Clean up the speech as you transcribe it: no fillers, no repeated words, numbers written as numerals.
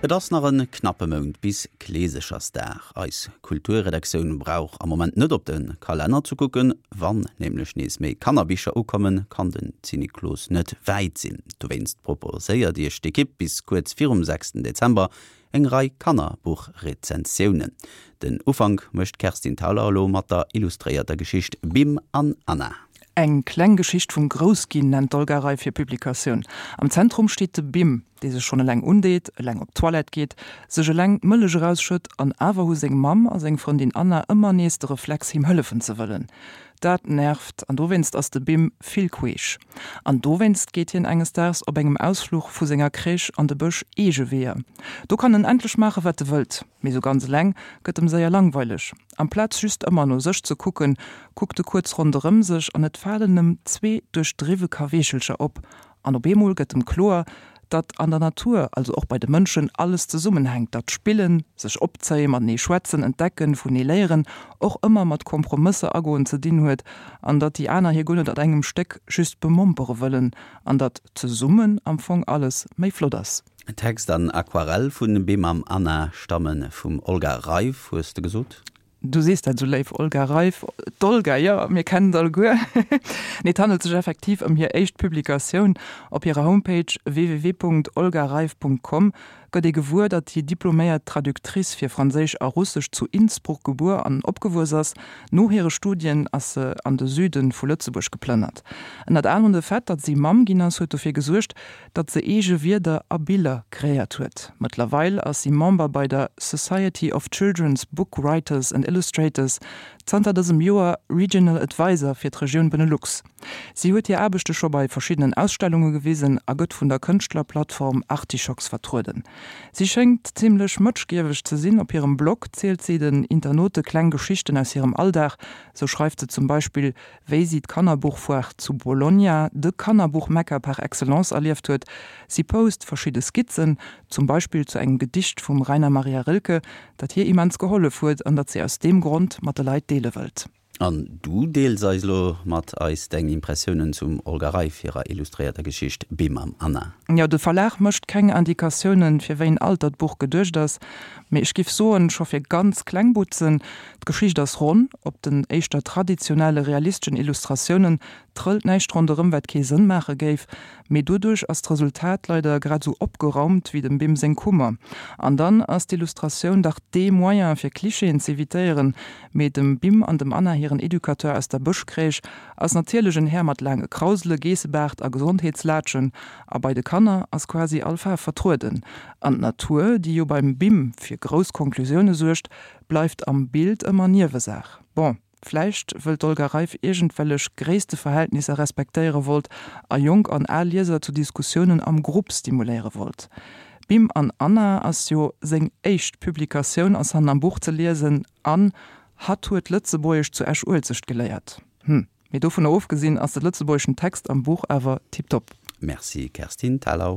Et ass nach e knappe Mount bis Kleesechersdag. Eis Kulturredaktioun brauch am Moment net op de Kalenner ze kucken. Wann nämlech nees méi Kannerbicher ukommen, kann den Zinniklos net wäit sinn. Dowéinst proposéiert Iech d'Ekipp bis kuerz virum 6 Dezember eng Rei Kannerbuchrezensiounen. Den Ufank mécht d'Kerstin Thalau elo mat der illustréierter Geschicht Bim an Anna. Eng kleng Geschicht vum Groussginn nennt d'Olga Reif hir Publikatioun. Am Zentrum steet de Bim, dee sech schonn eleng undeet, eleng op d'Toilette geet, sech eleng d'Mëllech erausschëtt an awer hu seng Mamm a seng Frëndin Anna ëmmer nees de Reflex him hëllefen ze wëllen. Dat nervt an dowéinst ass de Bim vill queesch. An dowéinst geet hien enges Daags op engem Ausfluch vu senger Crèche an de Bësch eege Weeër. Do kann en endlech maache wat e wëllt. Mee sou ganz eleng gëtt em séier langweileg. Amplaz just ëmmer no sech ze kucken, kuckt e kuerz ronderëm sech an et falen em zwee duerchdriwwe Kaweechelcher op. An op eemol gëtt em kloer, datt an der Natur, also och bei de Mënschen, alles zesummenhänkt, datt Spillen, sech opzéien, matenee schwätzen, entdecken, vunee léieren och ëmmer mat Kompromësser agoen ze dinn huet an datt déi aner hie guer net an engem Stéck just bemompere wëllen an datt zesummen am Fong alles méi flott ass. Text an Aquarell vu Bimam Anna stamme vum Olga Reif, hues de gesot? Du sees dat esou léif, Olga Reif. D'Olga, jo, mir kennen et alleguer. Nee, et handelt sech effektiv ëm hir éischt Publikatioun. Op hirer Homepage www.olgareif.com gëtt ee gewuer, datt déi diploméiert Traductrice fir Franséisch a Russesch zu Innsbruck gebuer an opgewuess ass. No hire Studien ass se an de Süde vu Lëtzebuerg geplënnert. Ënnert anerem de Fait, datt si Mamm ginn ass, huet dofir gesuergt, datt se eege Wierder a Biller kreéiert huet. Mëttlerweil ass si Member bei der Society of Children's Book Writers and Illustrators, zanter dësem Joer Regional Advisor fir d'Regioun Benelux. Si huet hir Aarbechte scho bei verschiddenen Ausstellunge gewisen a gëtt vun der Kënschtlerplattform Artischocks vertrueden. Si schéngt zimmlech mëtschgieweg ze sinn. Op hirem Blog zielt si den Internaute kleng Geschichten aus hirem Alldag. Sou schreift se zum Beispill wéi si d'Kannerbuchfoire zu Bologna, de Kannerbuch-Mekka par excellence, erlieft huet. Si post verschidde Skizzen, zum Beispill zu engem Gedicht vum Rainer Maria Rilke, dat hir immens gehollef huet an dat si aus deem Grond mat de Leit deele wëllt. An du deels eis elo mat eis deng Impressiounen zum Olga Reif hirer illustréierter Geschicht Bim mam Anna. Jo, de Verlag mécht keng Indikatiounen, fir wéi en Alter d'Buch geduecht ass, mee ech giff soen, scho fir ganz kleng Butzen. D'Geschicht ass ronn, op den éischter traditionelle realisteschen Illustratiounen trëllt näischt ronderëm wat kee Sënn maache géif, mee doduerch ass d'Resultat leider grad esou opgeraumt wéi dem Bim seng Kummer. An dann ass d'Illustratioun dach dee Moyen fir Klischeeën z'evitéieren, mee dem Bim an dem Anna hiren Educateur aus der Bëschcrèche ass natierlech en Här mat laange Krausele, Geessebaart a Gesondheetslaatschen, a bei de Kanner ass quasi all Faarf vertrueden. An d'Natur, déi jo beim Bim fir grouss Konklusioune suergt, bleift am Bild ëmmer Niewesaach. Bon, vläicht wëll d'Olga Reif iergendwellech Gréissteverhältnisser respektéiere wollt a jonk an al Lieser zu Diskussiounen am Grupp stimuléiere wollt. Bim an Anna ass jo seng éischt Publikatioun, ass hannen am Buch ze liesen, an hatt huet Lëtzebuergesch zu Esch-Uelzecht geléiert. Hm, mee dovunner ofgesinn ass de lëtzebuergeschen Text am Buch awer tiptop. Merci Kerstin Thalau.